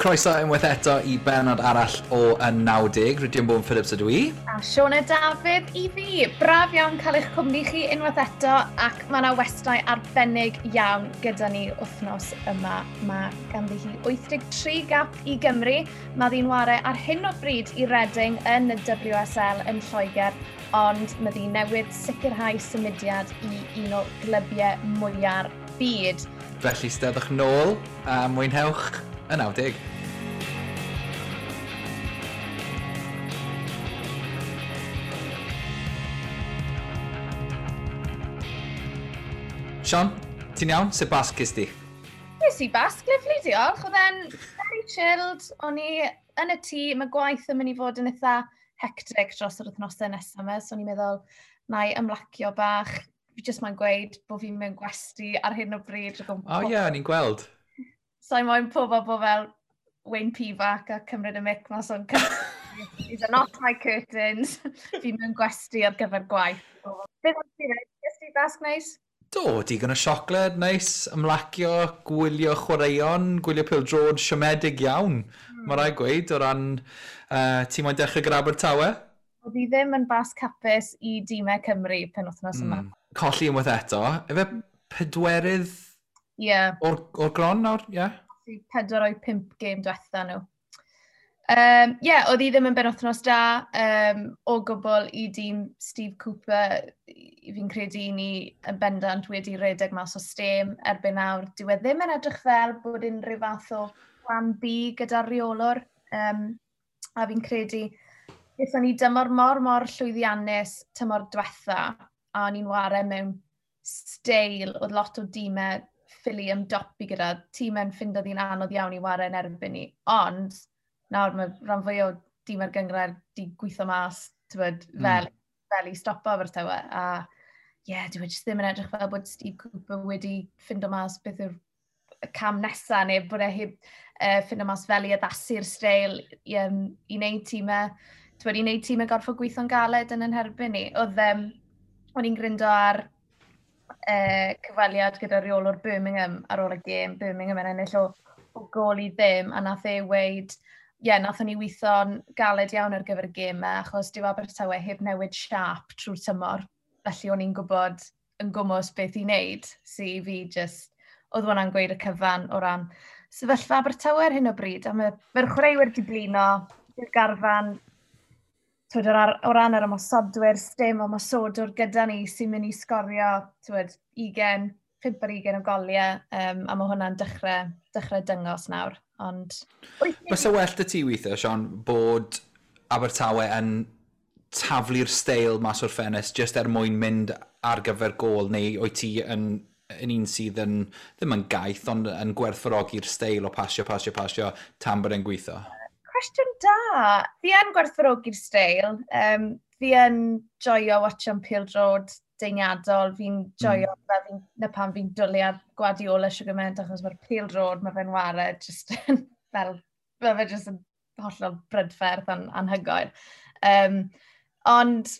Croeso unwaith eto i benod arall o Y 90. Rydyn Bowen Phillips ydw i. A Siona Dafydd i fi. Braf iawn cael eich cwmni chi unwaith eto, ac mae yna westai arbennig iawn gyda ni wythnos yma. Mae ganddi hi 83 gap i Gymru. Mae ddi'n ware ar hyn o bryd i Reading yn y WSL yn Lloegr, ond mae ddi newydd sicrhau symudiad i un o glybiau mwya'r byd. Felly steddwch nôl a mwynhewch y 90. Sian, ti'n iawn? Sut basg ges di? Nes i basg, lyfli, diolch. Oedd e'n very chilled. O'n i yn y tŷ, mae gwaith yn mynd i fod yn eitha hectic dros yr wythnosau nesaf yma, so o'n i'n meddwl, na i ymlacio bach. Fi jyst mae'n gweud bod fi'n mewn gwesty ar hyn o bryd. O oh, ie, yeah, o'n i'n gweld. So i moyn pobl bod fel Wayne Pivac a cymryd y mic mas o'n These are not my curtains. Fi mewn gwesty ar gyfer gwaith. Beth o'n ti'n Ges ti basg neis? Do, digon o siocled, neis, ymlacio, gwylio chwaraeon, gwylio pêl-droed siomedig iawn. Mae rhaid gweud, o ran ti moyn dechrau gyda Abertawe? Oedd hi ddim yn basg hapus i dîmau Cymru penwythnos yma. Colli unwaith eto. Efe pedwerydd o'r gron nawr? Ie. Yeah. 4 o'i 5 gêm diwetha nhw. Yeah, oedd hi ddim yn benwythnos da o gwbl i dîm Steve Cooper. Fi'n credu ni yn bendant wedi redeg mas o stêm erbyn nawr. Dyw e ddim yn edrych fel bod unrhyw fath o plan B gyda'r reolwr. A fi'n credu, gaethon ni dymor mor, mor llwyddiannus tymor diwetha, a o'n i'n ware mewn steil, oedd lot o dîmau ffili ymdopi gyda, tîmau'n ffindo ddi'n anodd iawn i ware yn erbyn ni. Ond nawr mae rhan fwy o dîmau'r gynghrair di gweithio mas, tywed, fel i stopo Abertawe. A ie, yeah, dwi jyst ddim yn edrych fel bod Steve Cooper wedi ffindo mas beth yw'r cam nesaf, neu bod e heb ffindo mas fel i addasu'r steil i wneud tîmau, tywed, i wneud tîmau gorfod gweithio'n galed yn herbyn ni. Oedd, o'n i'n gryndo ar cyfweliad gyda reolwr Birmingham ar ôl y gêm, Birmingham yn ennill o gôl i ddim, a nath e weud, ie, yeah, nathon ni weithio'n galed iawn ar gyfer y gêm yma, achos dyw Abertawe heb newid siâp trwy'r tymor. Felly o'n i'n gwybod yn gwmws beth i wneud, so i fi just, oedd hwnna'n gweud y cyfan o ran sefyllfa Abertawe ar hyn o bryd. A mae'r chwaraewyr di blino, yw'r garfan, twyd, o ran yr ymosodwyr, sdim ymosodwr gyda ni sy'n mynd i sgorio, twyd, 20, 5 ar 20 o goliau, a mae hwnna'n dechrau dyngos nawr. Ond Byse well dy ti weithio, Sian, bod Abertawe yn taflu'r steil mas o'r ffenest jyst er mwyn mynd ar gyfer gôl, neu wyt ti yn un sydd yn, ddim yn gaeth, ond yn gwerthfawrogi'r steil o pasio, pasio, pasio, tan bod e'n gweithio? Cwestiwn da. Fi yn gwerthfawrogi'r steil. Fi yn joio watcho'n pêl-droed deiniadol. Fi'n joio fel fi'n, na pam fi'n dwlu ar Guardiola siwr gymaint, achos mae'r pêl-droed, mae fe'n ware just yn fel, mae fe just yn hollol brydferth anhygoel. Ond,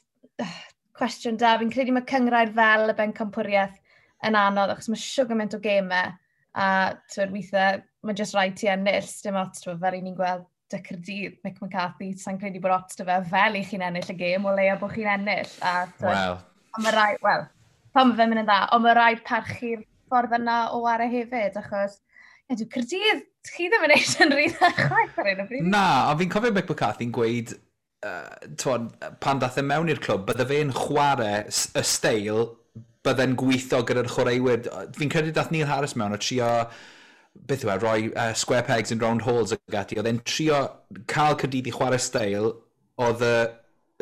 cwestiwn da, fi'n credu mae cynghrair fel y bencampwriaeth yn anodd, achos mae siwr gymaint o gemau, a twyd, weithiau, mae jyst rhaid ti ennill, dim ots, twyd, fel i ni'n gweld dy Caerdydd, Mick McCarthy, sa'n credu bod ots dy fe fel i chi'n ennill y gêm, o leia bod chi'n ennill. A, twyd, Wel. Ond mae rhaid, wel, pan mae fe'n mynd yn dda, ond mae rhaid parchu'r ffordd yna o ware hefyd, achos, ie, dwi Caerdydd, chi ddim yn eisiau yn rhy dda chwaith ar hyn o bryd. Na, ond fi'n cofio Mick McCarthy'n gweud, twod, pan dath e mewn i'r clwb, bydde fe'n chwarae y steil, bydde'n gweithio gyda'r chwaraewyr. Fi'n credu dath Neil Harris mewn o trio, beth yw e, roi square pegs in round holes ag ati. Oedd e'n trio cael Caerdydd i chwarae steil, oedd y,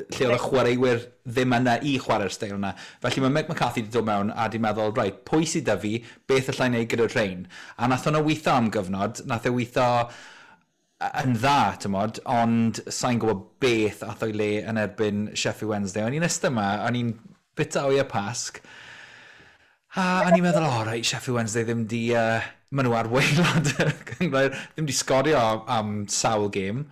lle oedd y chwaraewyr ddim yna i chwarae'r steil yna. Felly mae Mick McCarthy wedi dod mewn a di meddwl, reit, pwy sydd 'da fi, beth allai wneud gyda'r rhain? A nath hwnna weithio am gyfnod, nath e weithio yn dda, tymod, ond sa'n gwybod beth ath o'i le yn erbyn Sheffield Wednesday. O'n i'n ystod yma, o'n i'n bita o'i y Pasg, a o'n i'n meddwl, o, reit, Sheffield Wednesday ddim di, maen nhw ar waelod y cynghrair, ddim di sgorio am sawl gêm.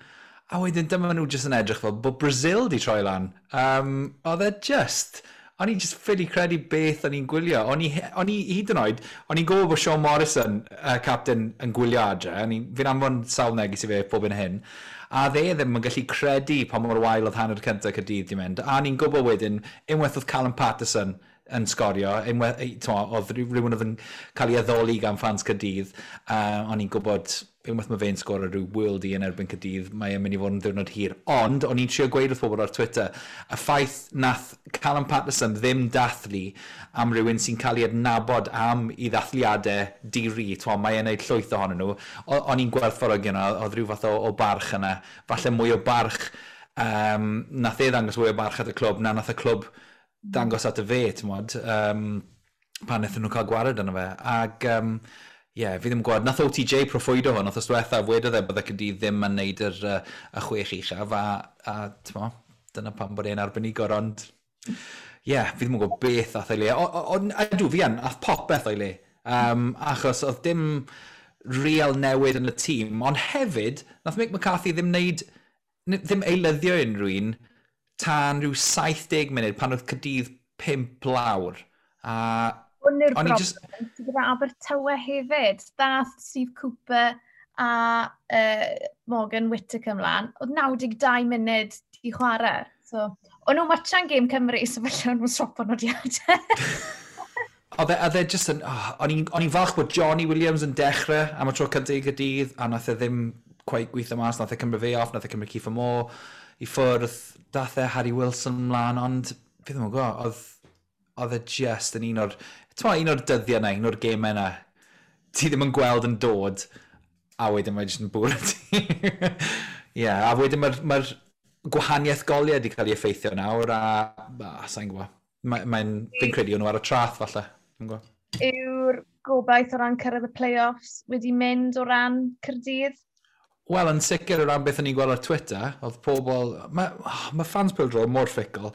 A wedyn dyma nhw jyst yn edrych fel bod Brazil di troi lan. Oedd e just, O'n i'n just ffili credu beth o'n i'n gwylio. O'n i hyd yn oed, o'n i'n gwybod bod Sean Morrison, y captain, yn gwylio adre. Fi'n anfon sawl neges i fe pob yn hyn. A dde ddim yn gallu credu pa mor wael oedd hanner cyntaf Caerdydd di mynd. A o'n i'n gwybod wedyn, unwaith oedd Callum Patterson yn sgorio, unwaith, oedd rhywun oedd yn cael ei addoli gan fans Caerdydd, o'n i'n gwybod unwaith mae fe'n sgorio rhyw worldie yn erbyn Caerdydd, mae e'n mynd i fod yn ddiwrnod hir. Ond, o'n i'n trio gweud wrth bobl ar Twitter, y ffaith nath Callum Patterson ddim dathlu am rhywun sy'n cael ei adnabod am i ddathliadau di-ri, mae e'n neud llwyth ohonyn nhw, o'n i'n gwerthfawrogi yna, oedd rhyw fath o barch yna, falle mwy o barch, nath e ddangos mwy o barch at y clwb, na nath y clwb dangos at y fe, ti'n mod, pan wnaethon nhw cael gwared yna fe. Ac, ie, fi ddim yn gwybod, nath OTJ proffwydo hwn, nath ystwetha, wedodd e bydde Caerdydd ddim yn neud y chwech uchaf, a t'mo, dyna pam bod e'n arbenigwr, ond ie, yeah, fi ddim yn gwybod beth ath o'i le. Ydw, fi yn, ath popeth o'i le, achos oedd dim real newid yn y tîm, ond hefyd, nath Mick McCarthy ddim neud, ddim eilyddio unrhyw un tan rhyw 70 munud pan oedd Caerdydd 5 lawr. A hwn yw'r broblem just gyda Abertawe hefyd. Dath Steve Cooper a Morgan Whittaker ymlaen. Oedd 92 munud i chwarae. So, o'n nhw'n watchan gêm Cymru, so felly o'n nhw'n swapo nodiadau. Oedd e just yn... Oh, o'n i'n falch bod Johnny Williams yn dechrau am y tro cyntaf i Gaerdydd, a nath e ddim quite gweithio mas, nath e cymryd fe off, nath e cymryd Kieffer Moore i ffwrdd, dath e Harry Wilson mlaen, ond fi ddim yn gwybod, oedd e just yn un o'r... Ti'n un o'r dyddiau yna, un o'r gemau yna, ti ddim yn gweld yn dod, a wedyn mae jyst yn bwrw ti. Ie, yeah, a wedyn mae'r ma gwahaniaeth goliau wedi cael ei effeithio nawr, a sa'n gwybod. Mae'n, fi'n credu o'n nhw ar y traeth, falle. Yw'r gobaith o ran cyrraedd y play-offs wedi mynd o ran Caerdydd? Wel, yn sicr o ran beth o'n i'n gweld ar Twitter, oedd pobl... Mae ma fans pêl-droed mor fickle.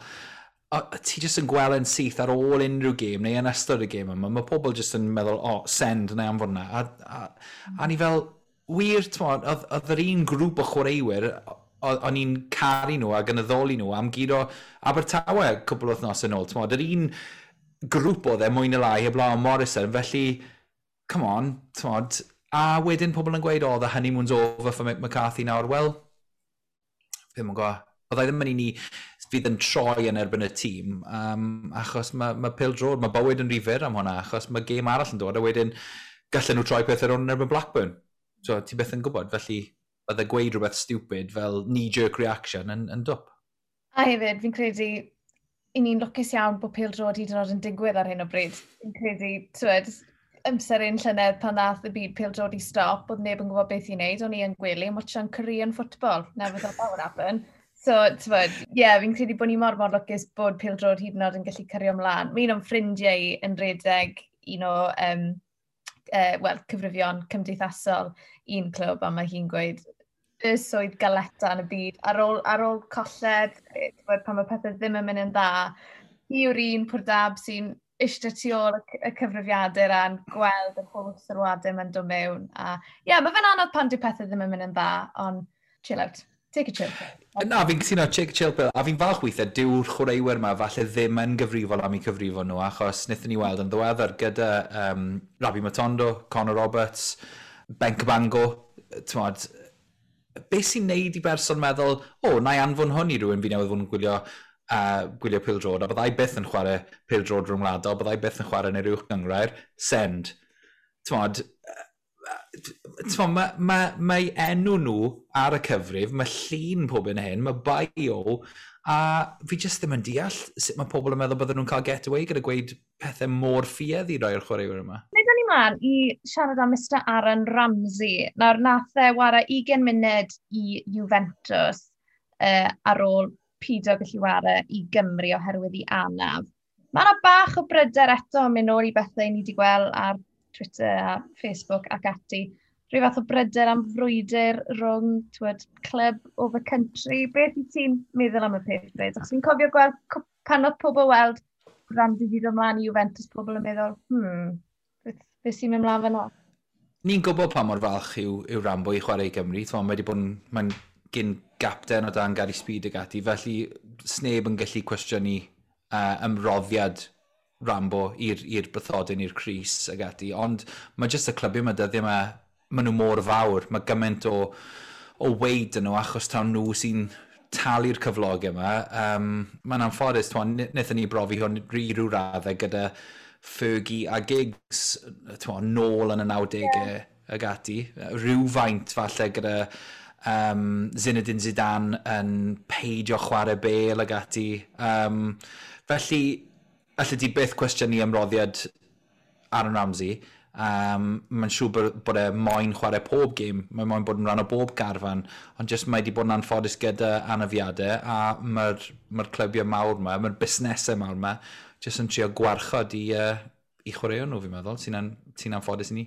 A ti jyst yn gweld yn syth ar ôl unrhyw gêm neu yn ystod y gêm yma, mae pobl jyst yn meddwl, o, oh, send neu anfon na. A ni fel, wir, t'mod, oedd yr un grŵp o chwaraewyr, o'n i'n caru nhw ac yn addoli nhw am guro Abertawe cwpl o wythnos yn ôl. T'mod, yr un grŵp oedd e mwy neu lai heblaw am Morrison, felly, come on, t'mod, a wedyn pobl yn gweud, oh, the honeymoon's over for Mick McCarthy nawr. Wel, ddim yn gwybod. Byddai ddim yn un i fydd yn troi yn erbyn y tîm, achos mae ma pêl-droed, mae bywyd yn rhy fyr am hwnna, achos mae gêm arall yn dod, a wedyn gallen nhw troi pethau rownd yn erbyn Blackburn. So, ti byth yn gwybod, felly bydde gweud rhywbeth stupid fel knee-jerk reaction yn dwp. A hefyd, fi'n credu, i ni'n lwcus iawn bod pêl-droed hyd yn oed yn digwydd ar hyn o bryd. Fi'n credu, t'wed, amser un llynedd pan ddath y byd pêl-droed i stop, oedd neb yn gwybod beth i wneud, o'n i yn gwely yn watchan Korean football. Never thought that would happen. So, t'wod, ie, yeah, fi'n credu bod ni mor mor lwcus bod pêl-droed hyd yn oed yn gallu cario ymlaen. Mae un o'n ffrindiau i yn redeg un o well, cyfrifion cymdeithasol un clwb, a mae hi'n gweud y swydd galeta yn y byd. Ar ôl colled, t'wod, pan mae pethau ddim yn mynd yn dda, hi yw'r un pwrdab sy'n eistedd tu ôl y cyfrifiadur a'n gweld yr holl sylwadau mae'n dod mewn. A ie, yeah, mae fe'n anodd pan dyw pethau ddim yn mynd yn dda, ond chill out. Take a chill pill. Na, fi'n cytuno, take a chill pill. A fi'n falch weithiau, dyw'r chwaraewyr yma falle ddim yn gyfrifol am eu cyfrifon nhw, achos wnaethon ni weld yn ddiweddar gyda Rabbi Matondo, Conor Roberts, Ben Cabango, t'mod, beth sy'n neud i berson meddwl, o, oh, na i anfon hwn i rhywun fi newydd fod yn gwylio pêl-droed, a byddai byth yn chwarae pêl-droed rhwngwladol, byddai byth yn chwarae yn yr uwch gynghrair, send. T'mod, mae ma, ma enw nhw ar y cyfrif, mae llun pob yn hyn, mae bio, a fi jyst ddim yn deall sut mae pobl yn meddwl bydden nhw'n cael get away gyda gweud pethau mor ffiaidd i roi o'r chwaraewyr yma. Nid ni mlaen i siarad am Mr Aaron Ramsey. Nawr, nath e wara 20 munud i Juventus ar ôl pido gallu wara i Gymru oherwydd i anaf. Mae yna bach o bryder eto yn mynd nôl i bethau ni wedi gweld ar Twitter a Facebook ac ati. Rhyw fath o bryder am frwydr rhwng, t'wod, club over country. Beth i ti'n meddwl am y peth, Bryd? Achos fi'n cofio gweld pan oedd pobl weld Ramsey wedi dod ymlaen i Juventus, pobl yn meddwl, beth sy'n mynd mlaen fan'na?" Ni'n gwybod pa mor falch yw Rambo i chwarae i Gymru. T'mo, mae wedi bod yn, mae'n gyn gapten o dan Gary Speed ag ati, felly sneb yn gallu cwestiynu ymroddiad Rambo i'r bythodyn, i'r crys ag ati, ond mae jyst y clybiau yma dyddiau yma, maen nhw mor fawr, mae gymaint o weid yn nhw achos taw nhw sy'n talu'r cyflogau yma. Mae'n anffodus, wnaethon ni brofi hwn i ryw raddau gyda Fergie a Giggs, t'mo, nôl yn y 90au ag ati. Rhywfaint falle gyda Zinedine Zidane yn peidio chwarae Bale ag ati. Felly, allet ti byth cwestiynu ymroddiad Aaron Ramsey. Mae'n siŵr bod e moyn chwarae pob gêm, mae moyn bod yn rhan o bob garfan, ond jyst mae wedi bod yn anffodus gyda anafiadau, a mae'r clybiau mawr yma, mae'r busnesau mawr yma, jyst yn trio gwarchod i chwaraeon nhw, fi'n meddwl, sy'n anffodus i ni.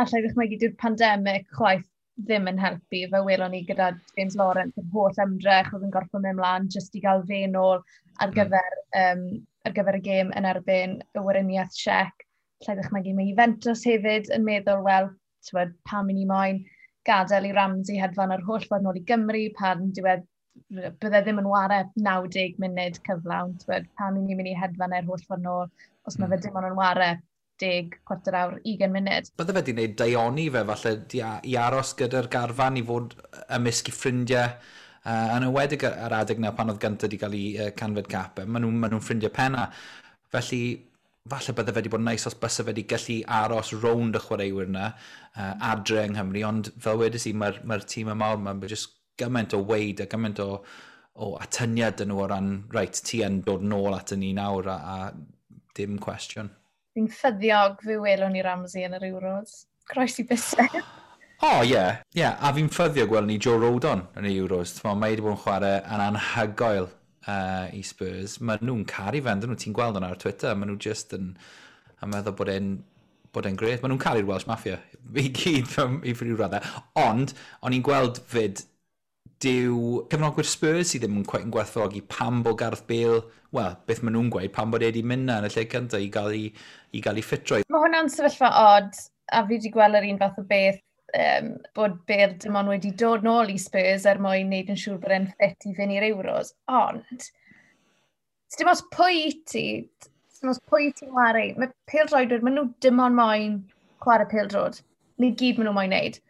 Alla i ddychmygu dyw'r pandemig chwaith ddim yn helpu, fe welon ni gyda James Lawrence, yr holl ymdrech oedd yn gorfod mynd mlaen jyst i gael fe nôl ar gyfer y gêm yn erbyn y Weriniaeth Czech. Alla i ddychmygu mae Juventus hefyd yn meddwl, wel, t'wod, pam i ni moyn gadael i Ramsey hedfan yr holl ffordd nôl i Gymru, pan diwedd bydde ddim yn ware 90 munud cyflawn, t'wod, pam i ni mynd i hedfan e'r holl ffordd nôl, os mae fe dim ond yn ware 10, chwarter awr, 20 munud. Bydde fe wedi gwneud daioni fe, falle, i aros gyda'r garfan, i fod ymysg i ffrindiau, yn enwedig ar adeg na pan oedd gyntaf wedi cael ei 100fed cap, maen nhw'n ffrindiau penna. Felly, falle bydde fe wedi bod yn neis os byse fe wedi gallu aros rownd y chwaraewyr yna adre yng Nghymru, ond fel wedes i, mae'r tîm y mawr yma, mae jyst gymaint o weid a gymaint o atyniad yn nhw o ran, reit, ti yn dod nôl at ni nawr a dim cwestiwn. Fi'n ffyddiog fe welwn ni Ramsey yn yr Euros. Croesi bysedd. O, ie. Ie, a fi'n ffyddiog gwelwn ni Joe Rodon yn y Euros. T'mo, mae wedi bod yn chwarae yn anhygoel i Spurs. Mae nhw'n caru fe, ydyn nhw, ti'n gweld hwnna ar Twitter. Mae nhw just yn meddwl bod e'n grêt. Mae nhw'n caru'r Welsh Mafia i gyd i ryw raddau. Ond, o'n i'n gweld fyd, dyw cefnogwyr Spurs sydd ddim yn quite yn gwerthfawrogi pam bod Gareth Bale, wel, beth maen nhw'n gweud, pam bod e wedi mynd na yn y lle cyntaf i gael ei ffitrwydd. Mae hwnna'n sefyllfa odd, a fi wedi gweld yr un fath o beth, bod Bale dim ond wedi dod nôl i Spurs er mwyn wneud yn siŵr bod e'n ffit i fynd i'r Euros. Ond, dim ots pwy i ti, dim ots pwy ti'n wario, mae pêl-droedwyr, maen nhw dim ond moyn chwarae pêl-droed. Ni gyd maen nhw moyn wneud.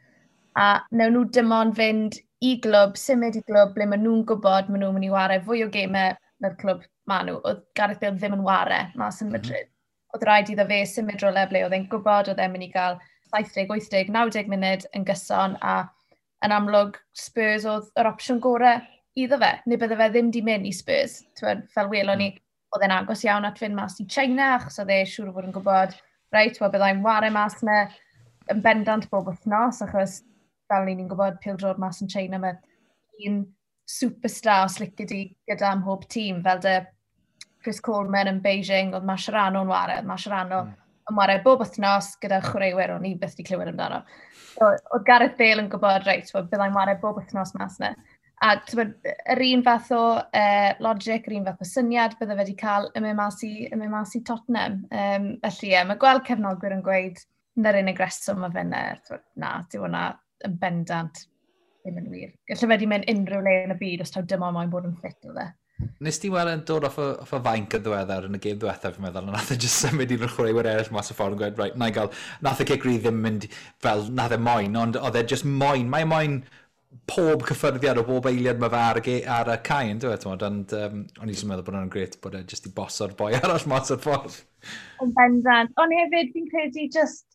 A newn nhw dim ond fynd i glwb, symud i glwb ble maen nhw'n gwybod maen nhw'n mynd i wario fwy o gemau na'r clwb maen nhw. Oedd Gareth Bale ddim yn ware mas yn Madrid. Oedd rhaid iddo fe symud rhywle ble oedd e'n gwybod oedd e'n mynd i gael 70, 80, 90 munud yn gyson a yn amlwg Spurs oedd yr opsiwn gorau iddo fe. Neu bydde fe ddim di mynd i Spurs. T'wod, fel welon ni, oedd e'n agos iawn at fynd mas i China, achos oedd e siŵr o fod yn gwybod, reit, wel byddai'n ware mas yna yn bendant bob wythnos, achos fel ni'n gwybod, pêl-droed mas yn China, mae un superstar os lici di gyda ym mhob tîm, fel dy Chris Coleman yn Beijing, oedd Mascherano'n ware, oedd Mascherano yn ware bob wythnos gyda chwaraewyr o'n i byth wedi clywed amdano. So, oedd Gareth Bale yn gwybod, reit, wel, byddai'n ware bob wythnos mas yna. A t'mod, yr un fath o logic, yr un fath o syniad bydde fe wedi cael yn mynd mas i Tottenham. Felly ie, mae gweld cefnogwyr yn gweud na'r unig reswm mae fe yna, t'mod, na, dyw hwnna yn bendant ddim yn wir. Gallai fe wedi mynd unrhyw le yn y byd os taw dim ond moyn bod yn ffit o fe. Nes ti weld e'n dod off y fainc yn ddiweddar yn y gêm ddiwethaf, fi'n meddwl, a nath e just symud un o'r chwaraewyr eraill mas y ffordd yn gweud, right, na i gael, nath y cic rydd ddim mynd fel nath e moyn, ond oedd e just moyn, mae e moyn pob cyffyrddiad o bob eiliad mae fe ar y cae, yn dweud, ond o'n i jyst yn meddwl bod hwnna'n grêt bod e just i boso'r boi arall mas o'r ffordd. Yn bendant. Ond hefyd, fi'n credu just,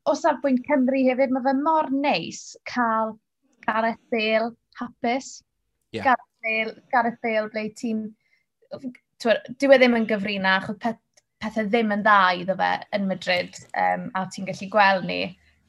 o safbwynt Cymru hefyd, mae fe mor neis cael Gareth Bale hapus. Gareth Bale ble ti'n. Dyw e ddim yn gyfrinach, oedd pethau ddim yn dda iddo fe yn Madrid, a ti'n gallu gweld ni.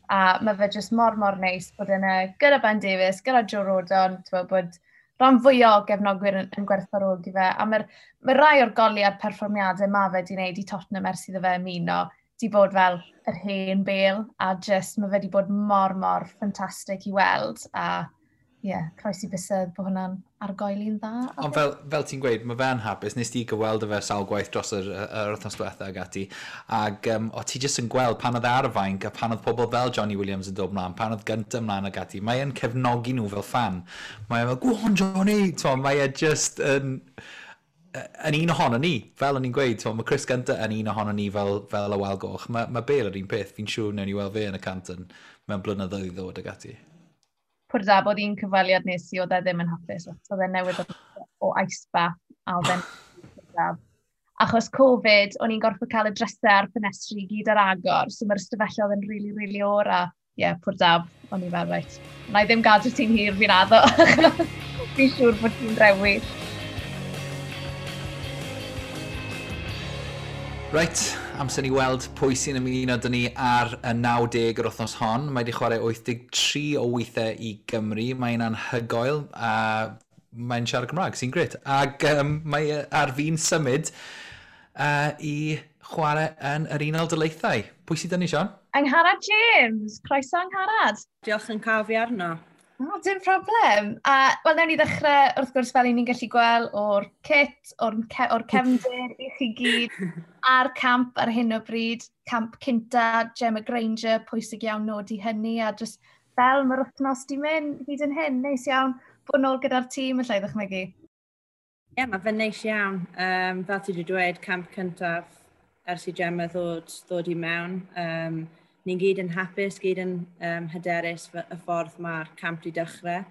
A mae fe jyst mor, mor neis bod yna gyda Ben Davies, gyda Joe Rodon, t'wod, bod rhan fwyaf o gefnogwyr yn gwerthfawrogi fe. A mae'r mae rai o'r goliau a'r perfformiadau mae fe wedi wneud i Tottenham ers iddo fe ymuno, di bod fel yr hen Bale, a just mae fe wedi bod mor, mor ffantastig i weld. A ie, yeah, croesi bysedd bod hwnna'n argoeli'n dda. Ond fel ti'n gweud, mae fe'n hapus. Nes ti gyfweld fe sawl gwaith dros yr wythnos diwetha ag ati. Ac o ti jyst yn gweld pan oedd e ar y fainc a pan oedd pobl fel Johnny Williams yn dod mlaen, pan oedd gyntaf mlaen ag ati, mae e'n cefnogi nhw fel fan. Mae e fel, "Go on, Johnny!" T'mo, mae e just yn. yn un ohono ni, fel o'n i'n gweud, mae Chris Gunter yn un ohono ni fel y Wal Goch. Mae Bale yr un peth, fi'n siŵr newn ni weld fe yn y cant yn, mewn blynyddoedd i ddod ag ati. Pwr da bod un cyfweliad nes i, oedd e ddim yn hapus. Oedd e newydd o ice bath a oedd e'n Achos Covid, o'n i'n gorfod cael y drysau a'r ffenestri i gyd ar agor, so mae'r ystafelloedd yn rili, really, rili really oer a ie, yeah, pwr dab, o'n i fel, reit, na i ddim gadw ti'n hir, fi'n addo. Fi'n siŵr bod ti'n rewi. Reit, amser ni weld pwy sy'n ymuno dyn ni ar y 90 yr wythnos hon. Mae wedi chwarae 83 o weithiau i Gymru. Mae'n anhygoel a mae'n siarad Cymraeg, sy'n gret. Ac mae ar fi'n symud i chwarae yn yr Unol Daleithiau. Pwy sydd dyn ni, Sian? Angharad James. Croeso, Angharad. Diolch yn cael fi arno. Oh, dim problem. A, wel, newn ni ddechrau, wrth gwrs, fel i ni'n gallu gweld, o'r kit, o'r, ce or cefndir i chi gyd, a'r camp ar hyn o bryd, camp cynta, Gemma Granger, pwysig iawn nodi hynny, a just fel mae'r wythnos di mynd hyd yn hyn, neis iawn bod nôl gyda'r tîm, allai ddychmygu. Ie, yeah, mae fe'n neis iawn. Fel ti wedi dweud, camp cyntaf ers i Gemma ddod i mewn. Ni'n gyd yn hapus, gyd yn hyderus y ffordd mae'r camp wedi dechrau.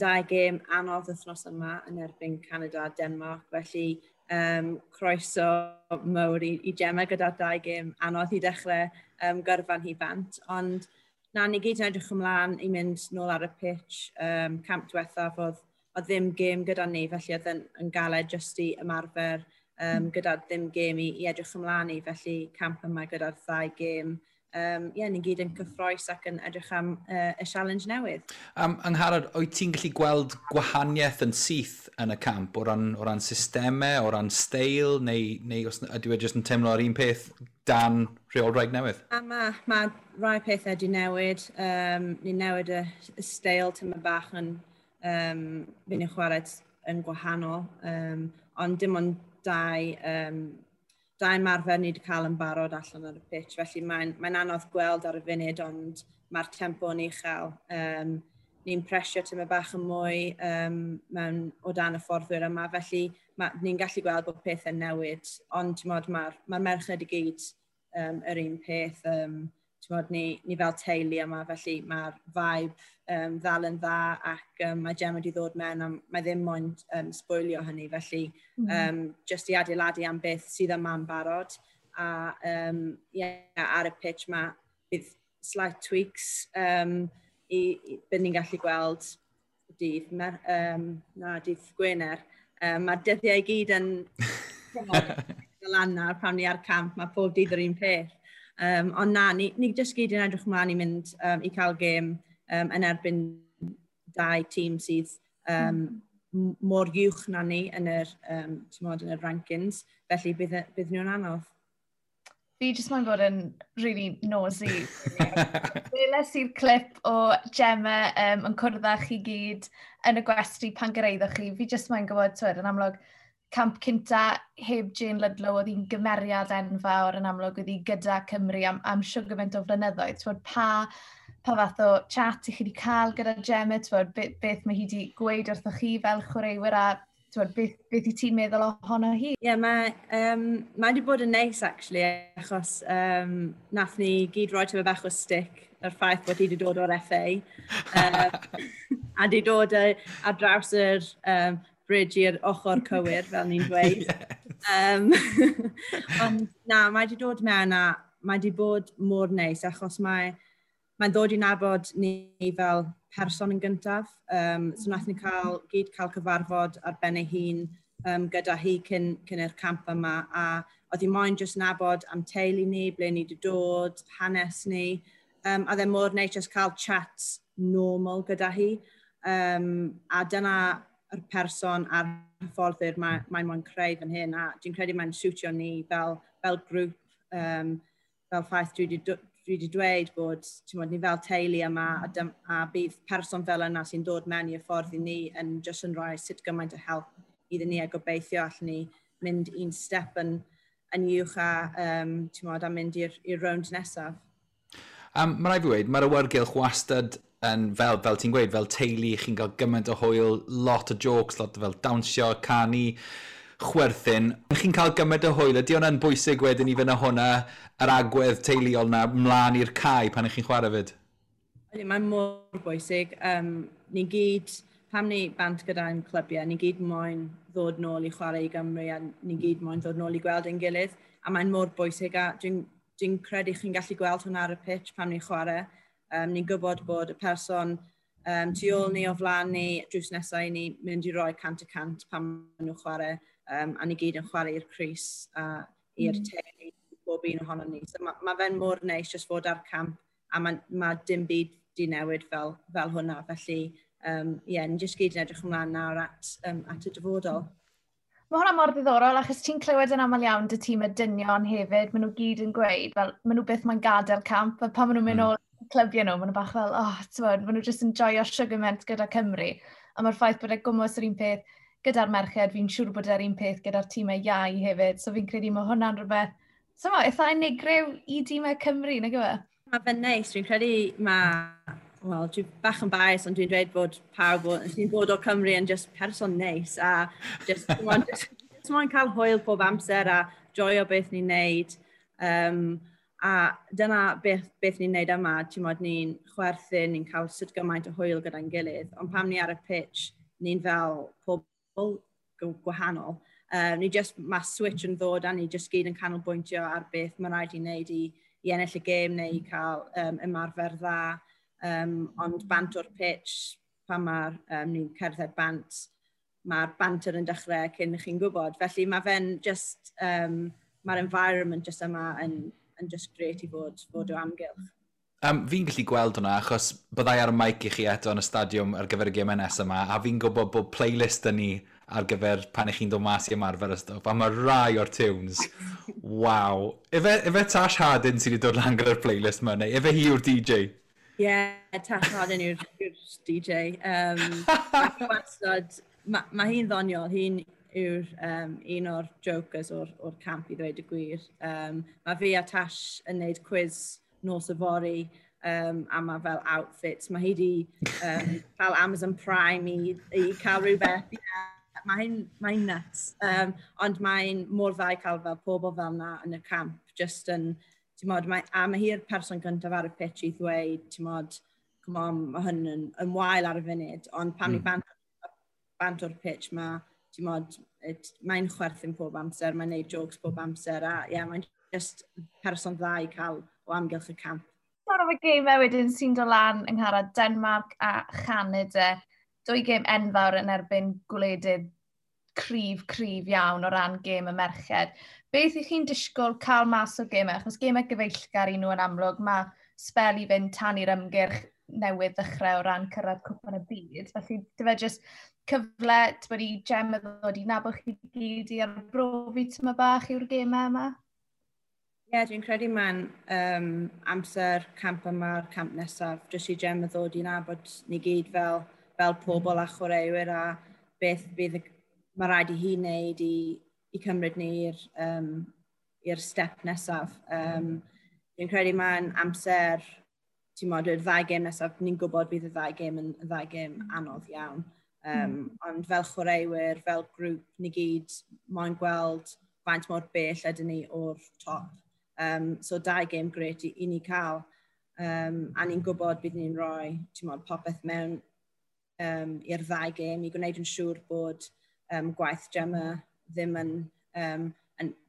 Dau gêm anodd wythnos yma yn erbyn Canada a Denmark, felly croeso mawr i Gemma gyda dau gêm anodd i dechrau gyrfan hi bant. Ond na, ni gyd yn edrych ymlaen i mynd nôl ar y pitch. Camp diwethaf oedd ddim gêm gyda ni, felly oedd yn galed jyst i ymarfer gyda ddim gêm i edrych ymlaen i, felly camp yma gyda'r ddau gêm. Yeah, ni'n gyd yn cyffroes ac yn edrych am y challenge newydd. Angharad, wyt ti'n gallu gweld gwahaniaeth yn syth yn y camp o ran systemau, o ran steil, neu os ydy e jyst yn teimlo ar un peth dan rheolwraig newydd? Mae rai pethau wedi newid. Ni'n newid y steil tyma bach yn fynd i'n chwarae yn gwahanol, ond dim ond dau marfer ni wedi cael yn barod allan ar y pitch, felly mae'n anodd gweld ar y funud, ond mae'r tempo yn uchel. Ni'n presio tyma bach yn mwy mewn o dan y fforddwyr yma, felly ni'n gallu gweld bod pethau'n newid, ond mae'r ma merched i gyd yr un peth. Ni fel teulu yma, felly mae'r vibe ddal yn dda ac mae Gemma wedi ddod mewn a mae ddim moyn sbwylio hynny, felly just i adeiladu am beth sydd yma'n barod. A yeah, ar y pitch mae bydd slight tweaks i bydd ni'n gallu gweld dydd Gwener. Mae'r dyddiau i gyd yn lan nawr pan ni ar camp, mae pob dydd yr un peth. Ond na, ni jyst gyd yn edrych ymlaen i mynd i cael gêm yn erbyn dau tîm sydd mor uwch na ni yn yr, yn yr rankings, felly bydd nhw'n anodd. Fi jyst moyn bod yn really nosy. Weles i'r clip o Gemma yn cwrdd â chi gyd yn y gwesty pan gyrraeddoch chi. Fi jyst moyn gwybod, twyd, yn amlwg, camp cynta heb Jane Ludlow, oedd hi'n gymeriad enfawr yn amlwg, oedd hi gyda Cymru am siwr gymaint o flynyddoedd. Twyd, pa fath o chat i chi wedi cael gyda Gemma, twyd, beth mae hi wedi gweud wrthoch chi fel chwaraewyr a twyd, beth i ti'n meddwl ohono hi? Ie, yeah, mae wedi bod yn neis, actually, achos nath ni gyd roi tyma bach o stick yr ffaith bod hi wedi dod o'r FA. A wedi dod ar draws yr bridge i'r ochr cywir, fel ni'n dweud. Yes. Ond na, mae wedi dod mewn a mae wedi bod mor neis, achos mae'n ddod i nabod ni fel person yn gyntaf. So nath ni gyd cael cyfarfod ar ben ei hun gyda hi cyn yr camp yma, a oedd hi moyn jyst nabod am teulu ni, ble ni wedi dod, hanes ni. A oedd e mor neis jyst cael chat normal gyda hi. A dyna yr person a'r hyfforddwyr mae'n moyn creu fan hyn, a dwi'n credu mae'n siwtio ni fel grŵp, fel ffaith dwi wedi dweud bod ni fel teulu yma a bydd person fel yna sy'n dod mewn i'r ffordd i ni yn jyst yn rhoi sut gymaint o help iddyn ni a gobeithio allan ni mynd un step yn uwch a, a mynd i'r rownd nesaf. Mae rhaid fi weud, mae'r awyrgylch wastad yn fel ti'n gweud, fel teulu, chi'n cael gymaint o hwyl, lot o jokes, lot o fel dawnsio, canu, chwerthin. Chi'n cael gymaint o hwyl, ydy hwnna'n bwysig wedyn i fynd â hwnna, yr agwedd teuluol na, mlaen i'r cae pan ych chi'n chwarae fyd? Ydy, mae'n mor bwysig. Ni gyd, pam ni bant gyda'n clybiau, ni gyd moyn ddod nôl i chwarae i Gymru a ni gyd moyn ddod nôl i gweld ein gilydd. A mae'n mor bwysig a dwi'n credu chi'n gallu gweld hwnna ar y pitch pam ni'n chwarae. Ni'n gwybod bod y person tu ôl ni, o flaen ni, drws nesau i ni mynd i roi 100% pan maen nhw'n chwarae. A ni gyd yn chwarae i'r crys a i'r teulu, bob un ohono ni. So ma fe'n mor neis jyst fod ar camp a ma dim byd di newid fel hwnna. Felly, ie, ni jyst gyd yn edrych ymlaen nawr at y dyfodol. Mae hwnna mor ddiddorol, achos ti'n clywed yn aml iawn dy tîm y dynion hefyd, maen nhw gyd yn gweud, fel, maen nhw byth mae'n gadael camp, a pan maen nhw'n mynd ôl clybiau nhw, maen nhw bach fel, oh, t'mod, maen nhw jyst yn joio sugarment gyda Cymru. A mae'r ffaith bod e gwmws yr un peth gyda'r merched, fi'n siŵr bod e'r un peth gyda'r tîmau iau hefyd, so fi'n credu mae hwnna'n rhywbeth, so ma, eitha unigryw i tîmau Cymru, nag yw e? Mae fe'n neis, dwi'n credu mae, wel, dwi bach yn bias, ond dwi'n dweud bod pawb sy'n dod o Cymru yn just person neis a just moyn cael hwyl pob amser a joio beth ni'n neud. A dyna beth ni'n neud yma, ti'n modd, ni'n chwerthin, ni'n cael sut gymaint o hwyl gyda'n gilydd, ond pam ni ar y pitch, ni'n fel pobl gwahanol. Ni just, mae switch yn ddod a ni just gyd yn canolbwyntio ar beth mae'n rhaid i wneud i ennill y gêm neu i cael ymarfer dda. Ond bant o'r pitch, pan mae'r ni'n cerdded bant, mae'r banter yn dechrau cyn chi'n gwybod. Felly mae fe'n just, mae'r environment just yma yn just great i fod o amgylch. Fi'n gallu gweld hwnna, achos byddai ar y mic i chi eto yn y stadiwm ar gyfer y gemau nesaf yma, a fi'n gwybod bod playlist yn ni ar gyfer pan ych chi'n dod mas i ymarfer y stwff, a mae rai o'r tunes, waw. Ife Tash Hardin sydd wedi dod lan gyda'r playlist yma, neu ife hi yw'r DJ? Ie, yeah, Tash Hardin yw'r DJ. Wastad, ma hi'n ddoniol, hi'n yw'r un o'r jokers o'r camp i ddweud y gwir. Mae fi a Tash yn neud quiz nos yfory, a mae fel outfits. Mae hi di cael Amazon Prime i cael rhywbeth. Yeah, mae hi'n nuts. Ond mae'n mor dda i cael fel pobl fel na yn y camp. Just yn, ti'n modd, a mae hi'r person gyntaf ar y pitch i ddweud, ti'n modd, come on, mae hyn yn wael ar y funud. Ond pan ni bant o'r pitch, mae, ti'n modd, mae'n chwerthin pob amser, mae'n neud jokes pob amser, a ie, yeah, mae'n just person dda i cael o amgylch y camp. Sôn am y gemau wedyn sy'n dod lan yng Ngharad, Denmark a Chanada. Dwy gêm enfawr yn erbyn gwledydd cryf, cryf iawn o ran gêm y merched. Beth ych chi'n disgwyl cael mas o'r gemau? Achos gemau gyfeillgar i nhw yn amlwg, mae sbel i fynd tan i'r ymgyrch newydd ddechrau o ran cyrraedd Cwpan y Byd. Felly, dy fe jyst cyfle ti'n i Gemma ddod i nabod chi gyd i arbrofi tyma bach yw'r gemau yma? Ie, yeah, dwi'n credu mae'n amser camp yma'r camp nesaf, jyst i Gemma ddod i nabod ni gyd fel pobl a chwaraewyr a beth bydd mae rhaid i hi wneud i cymryd ni i'r step nesaf. Dwi'n credu mae'n amser, ti'n modd, y ddau gêm nesaf, ni'n gwybod bydd y ddau gêm yn y ddau gêm anodd iawn. Ond fel chwaraewyr, fel grŵp, ni gyd moyn gweld faint mor bell ydyn ni o'r top. So dau gêm grêt i ni cael. A ni'n gwybod bydd ni'n rhoi, ti'n modd, popeth mewn i'r ddau gêm i gwneud yn siŵr bod gwaith Gemma ddim yn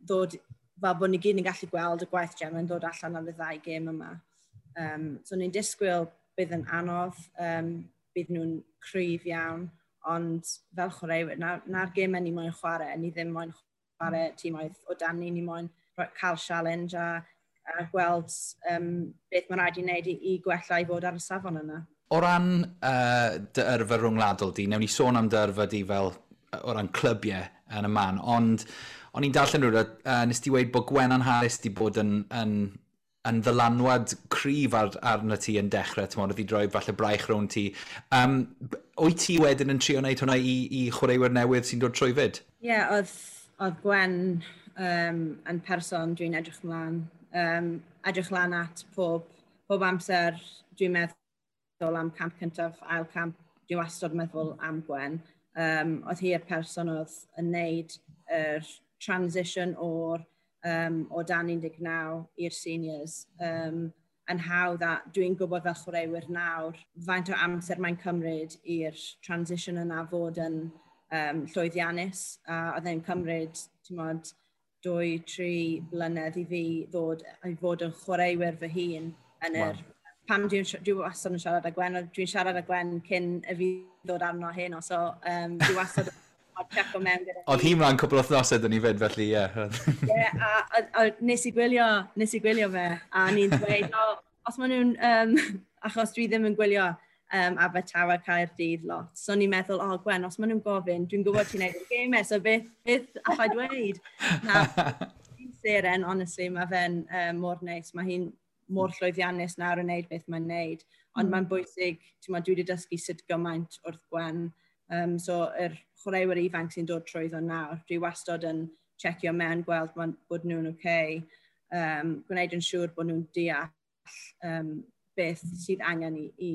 ddod, fel bod ni gyd yn gallu gweld y gwaith Gemma yn dod allan ar y ddau gêm yma. So ni'n disgwyl bydd yn anodd, bydd nhw'n cryf iawn, ond fel chwaraewyr, na'r gemau ni moyn chwarae, ni ddim moyn chwarae tîmoedd o dan ni, ni moyn cael challenge a gweld beth mae'n rhaid i wneud i gwella i fod ar y safon yna. O ran dy yrfa rhwngwladol di, newn ni sôn am dy yrfa di fel o ran clybiau yn y man, ond o'n i'n darllen rhywbeth, nes ti weud bod Gwennan Harris di bod yn ddylanwad cryf arno ti yn dechrau, ti'n modd, oedd i droi falle braich rownd ti. Wyt ti wedyn yn trio wneud hwnna i chwaraewyr newydd sy'n dod trwy fyd? Ie, yeah, oedd Gwen yn person dwi'n edrych ymlaen. Edrych lan at pob amser dwi'n meddwl am camp cyntaf, ail camp, dwi'n wastad meddwl am Gwen. Oedd hi'r person oedd yn neud yr transition o dan 19 i'r seniors. Yn hawdd, a dwi'n gwybod fel chwaraewyr nawr faint o amser mae'n cymryd i'r transition yna fod yn llwyddiannus. A oedd e'n cymryd, ti'n mod, 2, 3 blynedd i fi ddod i fod yn chwaraewyr fy hun yn yr. Pam dwi wastad yn siarad â Gwen, dwi'n siarad â Gwen cyn y fi ddod arno heno, so dwi wastad yn checo mewn gyda. Oedd hi mlaen cwpl o wythnosau dyn ni fyd, felly ie. Ie, a nes i gwylio fe, a ni'n dweud, o, os maen nhw'n, achos dwi ddim yn gwylio Abertawe Caerdydd lot, so ni'n meddwl, "O oh, Gwen, os maen nhw'n gofyn, dwi'n gwybod ti'n neud y gemau, so beth allai dweud?" Na, seren, honestly, mae fe'n mor neis, mae hi'n mor llwyddiannus nawr yn neud beth mae'n neud. Ond mae'n bwysig, ti'n dwi wedi dysgu sut gymaint wrth Gwen. So, yr chwaraewyr ifanc sy'n dod trwyddo nawr, dwi wastad yn checio mewn, gweld bod nhw'n oce, okay, gwneud yn siŵr bod nhw'n deall beth sydd angen i,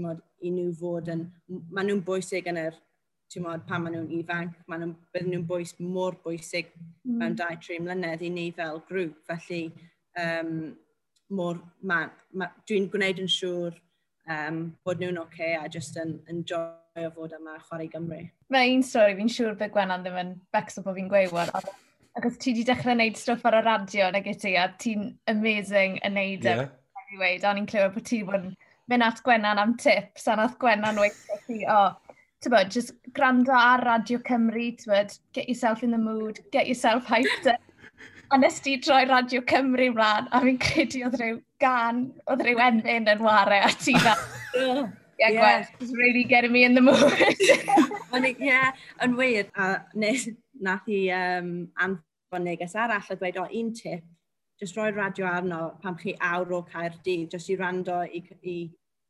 mod, i nhw fod yn. Maen nhw'n bwysig yn yr, mod, pan maen nhw'n ifanc, maen nhw'n, bydden nhw'n mor bwysig mewn 2, 3 mlynedd i ni fel grŵp. Felly, mor, dwi'n gwneud yn siŵr bod nhw'n oce okay a just yn enjoyo fod yma chwarae Gymru. Mae un stori fi'n siŵr bydd Gwenan ddim yn becso bod fi'n gweud wan. Achos ti wedi dechrau gwneud stwff ar y radio nag y ti, a ti'n amazing yn neud e. I weud, a ni'n clywed bod ti bod yn mynd at Gwenan am tips, a nath Gwenan weud ti, "Oh, ti'n just gwrando ar Radio Cymru, ti'n get yourself in the mood, get yourself hyped up." A nes ti droi Radio Cymru mlaen, a fi'n credu oedd rhyw gan, oedd rhyw emyn yn ware, a ti fel, "Yeah, Gwen, it's really getting me in the mood." Ie, yn wir. A nath i anfon neges arall a dweud, "O, un tip, just rhoi radio arno pam chi awr o Caerdydd, just i rando i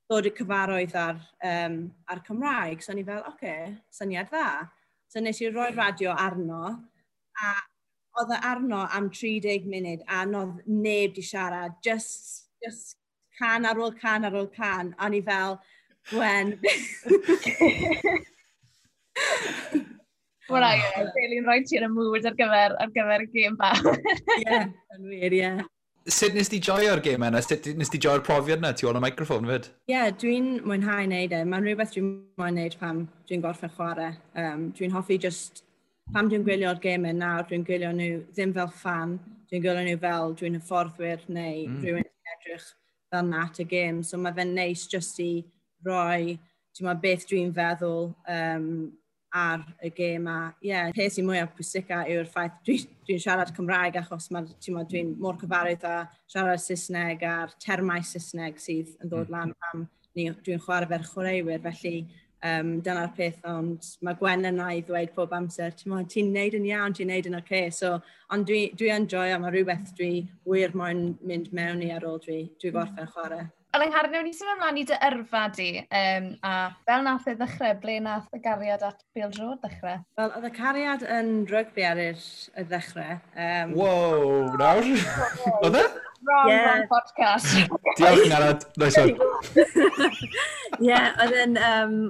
ddod i cyfarwydd ar Cymraeg." So ni fel, "Oce, okay, syniad dda." So nes i roi radio arno, a oedd e arno am 30 munud a nodd neb di siarad, just can ar ôl can ar ôl can, a ni fel, "Gwen." Wel, ie, really rhoi ti yn y mood ar gyfer y gêm bach. Ie, yn wir, ie. Sut nes ti joio'r gêm yna? Sut nes ti joio'r profiad yna tu ôl y microffon fyd? Ie, yeah, dwi'n mwynhau wneud e. Mae'n rhywbeth dwi'n mwynhau wneud pam dwi'n gorffen chwarae. Dwi'n hoffi just, pam dwi'n gwylio'r gemau nawr, dwi'n gwylio nhw ddim fel fan, dwi'n gwylio nhw fel dwi'n hyfforddwyr neu rhywun sy'n edrych fel na at y gêm. So mae fe'n neis just i roi, ti'n beth dwi'n feddwl ar y gêm a ie, yeah, peth sy'n mwyaf pwysica yw'r ffaith dwi siarad Cymraeg achos dwi'n mor cyfarwydd â siarad Saesneg a'r termau Saesneg sydd yn dod lan pam dwi'n chwarae fe'r chwaraewyr, felly dyna'r peth, ond mae Gwen yna i ddweud pob amser, "Ti'n ti neud yn iawn, ti'n neud yn oce." Okay. So, ond dwi yn joio, mae rhywbeth dwi wir moyn mynd mewn i ar ôl dwi gorffen chwarae. Ond Angharad, newn ni symud ymlaen i dy yrfa di, a fel nath e ddechrau, ble nath y gariad at bêl-droed ddechrau? Wel, oedd y cariad yn rygbi ar y ddechrau. Wow, nawr? Oedd e? Wrong, yeah. Wrong podcast. Diolch, Angharad. Nice one. Ie, oedd yn,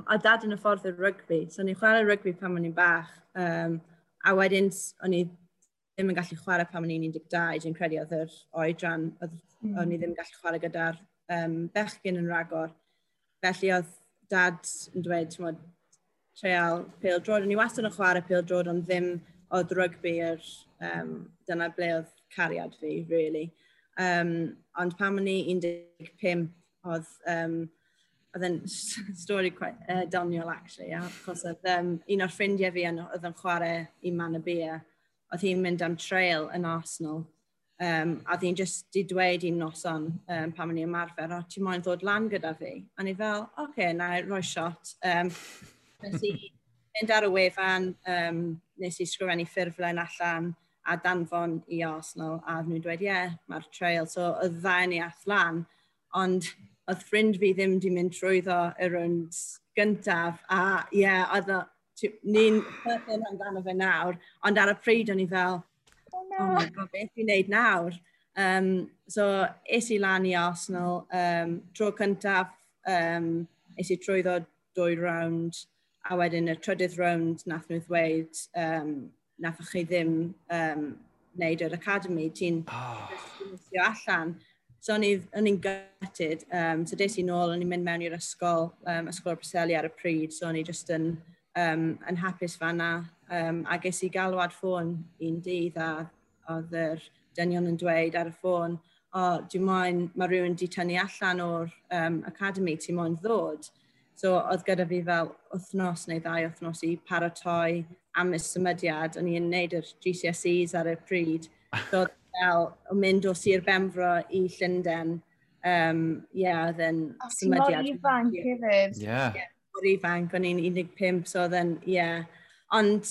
oedd dad yn hyfforddwr rygbi, so o'n i'n chwarae rygbi pan o'n i'n bach. A wedyn, o'n i ddim yn gallu chwarae pan o'n i'n 12, dwi'n credu oedd yr oedran, oedd, o'n i ddim yn gallu chwarae gyda'r bechgyn yn ragor. Felly oedd dad yn dweud, ti'n mod, treial pêl-droed. O'n i wastad yn chwarae pêl-droed, ond ddim oedd rygbi dyna ble oedd cariad fi, really. Ond pan o'n i 15, oedd e'n stori quite doniol, actually, achos oedd un o'r ffrindiau fi oedd yn chwarae i Manorbier, oedd hi'n mynd am trial yn Arsenal. A oedd hi'n just di dweud un noson pan o'n i ymarfer, "O, ti moyn ddod lan gyda fi?" A ni fel, "Oce, okay, na i roi shot." Nes i mynd ar y wefan, nes i sgrifennu ffurflen allan a danfon i Arsenal, a nhw'n dweud, "Ie, yeah, mae'r trial." So, oedd ddau ni ath lan, ond oedd ffrind fi ddim di mynd trwyddo y rownd gyntaf, a ie, yeah, oedd ni'n chwerthin amdano fe nawr, ond ar y pryd o'n i fel, "Oh, no. Oh my God, beth fi'n neud nawr?" So, es i lan i Arsenal, tro cyntaf, es i trwyddo dwy rownd, A wedyn y trydydd rownd nath nhw ddweud, nath chi ddim wneud yr academy, ti'n oh, allan. So o'n i'n gutted. So des i nôl, o'n i'n mynd mewn i'r ysgol, ysgol o'r Preseli ar y pryd, so o'n i just yn hapus fanna. A ges i galwad ffôn un dydd a oedd yr dynion yn dweud ar y ffôn, "O, oh, dwi moyn, mae rhywun di tynnu allan o'r academy, ti moyn ddod?" So oedd gyda fi fel wythnos neu 2 wythnos i paratoi am y symudiad. O'n i'n neud yr GCSEs ar y pryd. So oedd fel o mynd o Sir Benfro i Llundain. Yeah, oedd yn Oh, ti'n mor symudiad. Ifanc hefyd. Yeah. Mor ifanc, o'n i'n 15, so oedd yn, yeah. Ond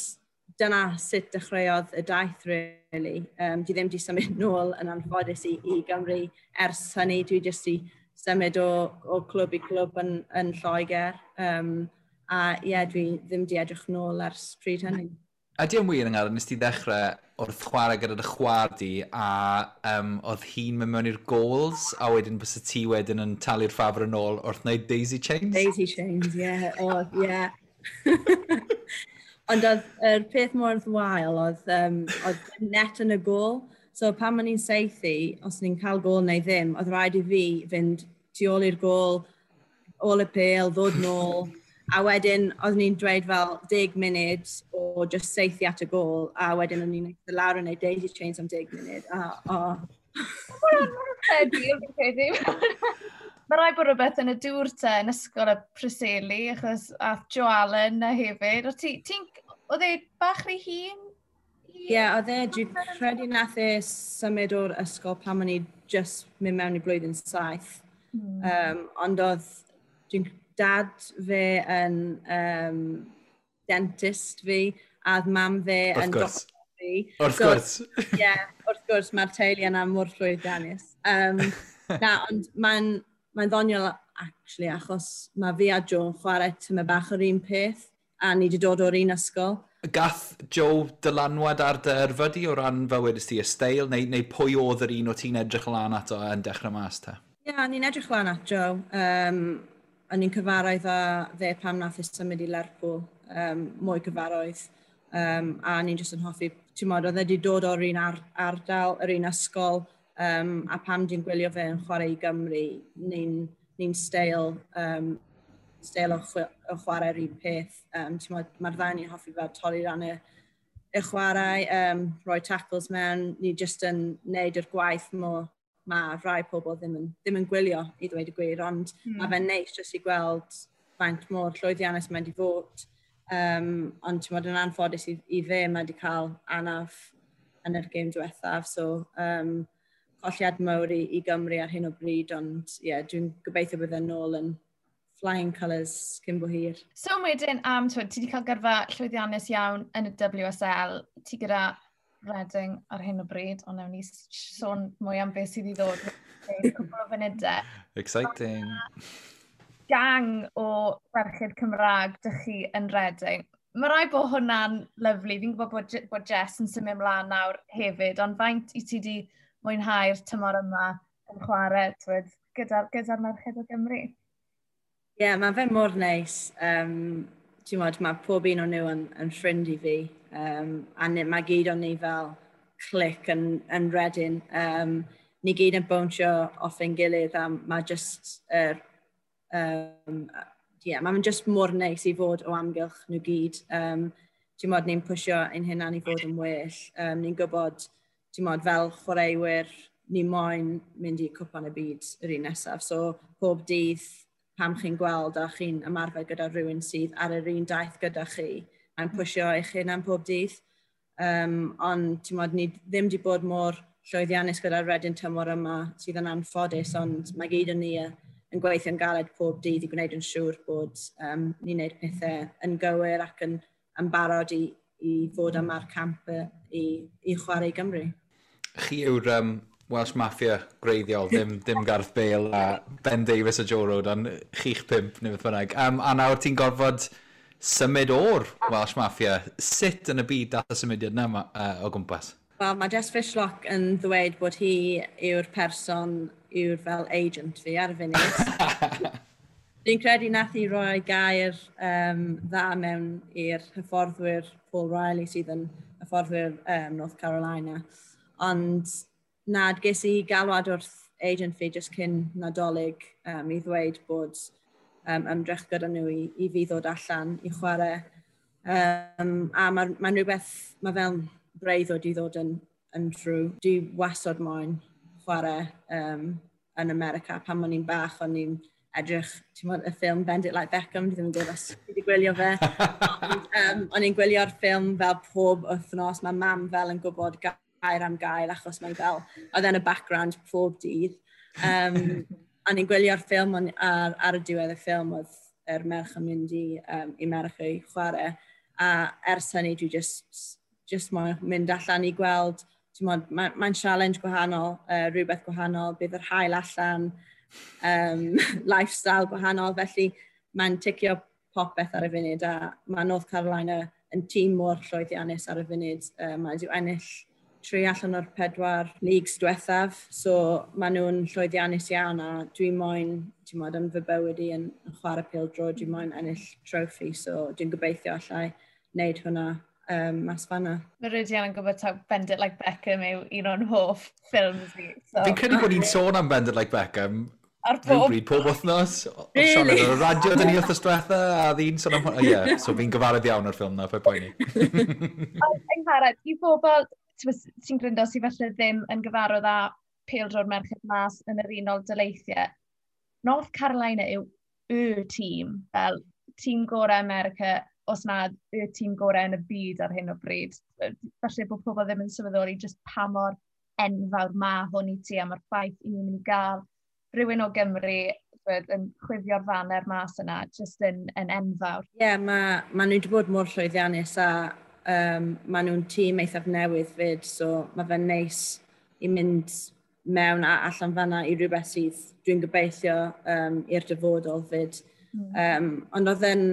dyna sut dechreuodd y daith, really. Dwi ddim wedi symud nôl yn anffodus i Gymru ers hynny. Dwi jyst i symud o clwb i clwb yn Lloegr. A ie, yeah, dwi ddim wedi edrych nôl ers pryd hynny. Ydy yn wir yng nes ti ddechrau wrth chwarae gyda dy chwaer di a oedd hi'n mynd mewn i'r goals a wedyn bys ti wedyn yn talu'r ffafr yn ôl wrth wneud daisy chains? Daisy chains, ie. Yeah. Oedd, ie. Yeah. Ond oedd yr peth mor wael oedd net yn y gôl. So pan o'n i'n saethu, os ni'n cael gôl neu ddim, oedd rhaid i fi fynd tu ôl i'r gôl, ôl y pêl, ddod nôl. A wedyn, oedd ni'n dweud fel 10 munud o just saethu at y gôl, a wedyn o'n i'n eistedd lawr yn neud daisy chains am 10 munud. A, oh. Credu, fi'n credu. Mae rhaid bod rhywbeth yn y dŵr te yn ysgol y Preseli, achos ath Joe Allen na hefyd. Oedd e bach rhy hŷn? Ie, yeah, oedd e, dwi'n credu nath e symud o'r ysgol pan o'n i just mynd mewn i blwyddyn 7. Ond oedd, dwi'n dad fe yn dentist fi, a oedd mam fe yn doctor fi. Wrth gwrs. Ie, yeah, wrth gwrs, mae'r teulu yna mor llwyddiannus. Na, ond mae'n ddoniol, actually, achos mae fi a Joe yn chwarae tyma bach o'r un peth, a ni wedi dod o'r un ysgol. Gath Joe dylanwad ar dy yrfa di o ran fel wedys ti y steil, neu pwy oedd yr un o ti'n edrych lan ato yn dechrau mas te? Ie, yeah, ni'n edrych lan at Joe. O'n i'n cyfarwydd â fe pam nath e symud i Lerpwl, mwy cyfarwydd. A ni'n jyst yn hoffi, ti'n modd, oedd e wedi dod o'r un ardal, yr un ysgol, a pam dwi'n gwylio fe yn chwarae i Gymru, ni'n steil o chwarae'r un peth. Ti'n modd, mae'r ddau ni'n hoffi fel torri ran y chwarae, rhoi tackles mewn, ni jyst yn neud yr gwaith mo mae rhai pobl ddim yn gwylio, i ddweud y gwir, ond mae fe'n neis jyst i gweld faint mor llwyddiannus mae'n di fod. Ond ti'n modd, yn anffodus i fe, mae wedi cael anaf yn yr gêm diwethaf, so colliad mawr i Gymru ar hyn o bryd, ond ie, yeah, dwi'n gobeithio bydd e'n nôl yn flying colours cyn bo hir. So wedyn, twyd, ti wedi cael gyrfa llwyddiannus iawn yn y WSL, ti gyda Reading ar hyn o bryd, ond newn ni sôn mwy am beth sydd i ddod mewn cwpl o funudau. Exciting. Gang o ferched Cymraeg dych chi yn Reading. Mae rhaid bod hwnna'n lyfli. Fi'n gwybod bod Jess yn symud ymlaen nawr hefyd, ond faint i ti wedi mwynhau'r tymor yma yn chwarae, twyd, gyda merched o Gymru? Ie, yeah, mae fe mor neis. Ti'n modd, mae pob un o'n nhw yn ffrind i fi. A mae gyd o'n ni fel clic yn Reading. Ni gyd yn bownsio off ein gilydd a mae just, yeah, mae'n just mor neis i fod o amgylch nhw gyd. Ti'n modd, ni'n pwysio ein hunan i fod yn well. Ni'n gwybod, ti'n modd, fel chwaraewyr, ni moyn mynd i cwpan y byd yr un nesaf. So, pob dydd pam chi'n gweld a chi'n ymarfer gyda rhywun sydd ar yr un daith gyda chi, mae'n pwysio eich hunan pob dydd. Ond ti'n modd, ni ddim wedi bod mor llwyddiannus gyda'r Reading tymor yma sydd yn anffodus, ond mae gyd yn ni yn gweithio'n galed pob dydd i gwneud yn siŵr bod ni'n gwneud pethau yn gywir ac yn barod i fod yma'r camp i chwarae i Gymru. Chi yw'r Welsh Mafia gwreiddiol, ddim Gareth Bale a Ben Davies a Joe Rodon, chi'ch pump neu beth bynnag. A nawr ti'n gorfod symud o'r Welsh Mafia. Sut yn y byd dath y symudiad yna o gwmpas? Wel, mae Jess Fishlock yn ddweud bod hi yw'r person, yw'r fel agent fi ar y funud. Dwi'n credu nath i roi gair dda mewn i'r hyfforddwyr Paul Riley sydd yn hyfforddwyr North Carolina. Ond na, ges i galwad wrth agent fi jyst cyn Nadolig i ddweud bod ymdrech gyda nhw i fi ddod allan i chwarae. A mae'n ma rhywbeth, mae fel breuddwyd i ddod yn true. Dwi wastad moyn chwarae yn America. Pan o'n i'n bach, o'n i'n edrych, ti'n gwbod, y ffilm Bend It Like Beckham, dwi ddim yn gwybod os ti wedi gwylio fe. Ond, o'n i'n gwylio'r ffilm fel pob wythnos, mae mam fel yn gwybod gair am gair achos mae'n fel, oedd e'n y background pob dydd. O'n i'n gwylio'r ffilm ar y diwedd y ffilm oedd yr merch yn mynd i America i chwarae. A ers hynny dwi just moyn mynd allan i gweld, ti'n gwbod, mae'n ma challenge gwahanol, rhywbeth gwahanol, bydd yr haul allan, lifestyle gwahanol, felly mae'n ticio popeth ar y funud a mae North Carolina yn tîm mor llwyddiannus ar y funud. Mae wedi ennill 3 allan o'r 4 leagues diwethaf, so maen nhw'n llwyddiannus iawn a dwi'n moyn, ti'n gwbod, yn fy bywyd i yn chwarae pêl-droed, dwi'n moyn ennill trophy, so dwi'n gobeithio allai wneud hwnna mas fanna. Mae Rhydian yn gwybod taw Bend It Like Beckham yw un o'n hoff ffilms fi. So. Fi'n credu bod ni'n sôn am Bend It Like Beckham ar pob rhywbryd, pob wythnos. Really? Sion ar y radio dyn ni wythnos diwetha, a ddyn sôn am hwnna. Ie, so fi'n gyfarwydd iawn o'r ffilm na, paid poeni. Ond Angharad, i bobl sy'n gryndo sydd falle ddim yn gyfarwydd â pêl-droed merched mas yn yr Unol Daleithiau, North Carolina yw y tîm, fel tîm gorau America, os nad y tîm gorau yn y byd ar hyn o bryd. Falle bod pobl ddim yn sylweddoli just pa mor enfawr ma hwn i ti, a mae'r ffaith i ni'n mynd i gael rhywun o Gymru yn chwifio'r faner mas yna, just yn enfawr. Ie, yeah, mae ma nhw wedi bod mor llwyddiannus a ma nhw'n tîm eithaf newydd fyd, so mae fe'n neis i mynd mewn a allan fanna i rhywbeth sydd dwi'n gobeithio i'r dyfodol fyd. Ond oedd e'n,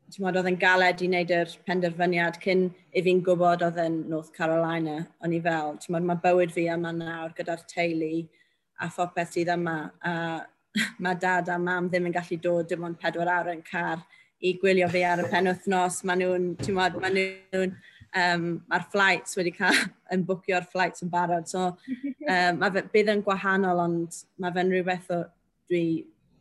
ti'n gwbod, oedd e'n galed i wneud yr penderfyniad cyn i fi'n gwybod oedd e'n North Carolina. O'n i fel, ti'n gwbod, mae bywyd fi yma nawr gyda'r teulu a phopeth sydd yma. A mae dad a mam ddim yn gallu dod dim ond 4 awr yn car i gwylio fi ar y penwythnos. Maen nhw'n, ti'n gwbod, maen nhw'n, mae'r flights wedi cael, yn bwcio'r flights yn barod. So, mae fe, bydd yn gwahanol, ond mae fe'n rhywbeth o dwi,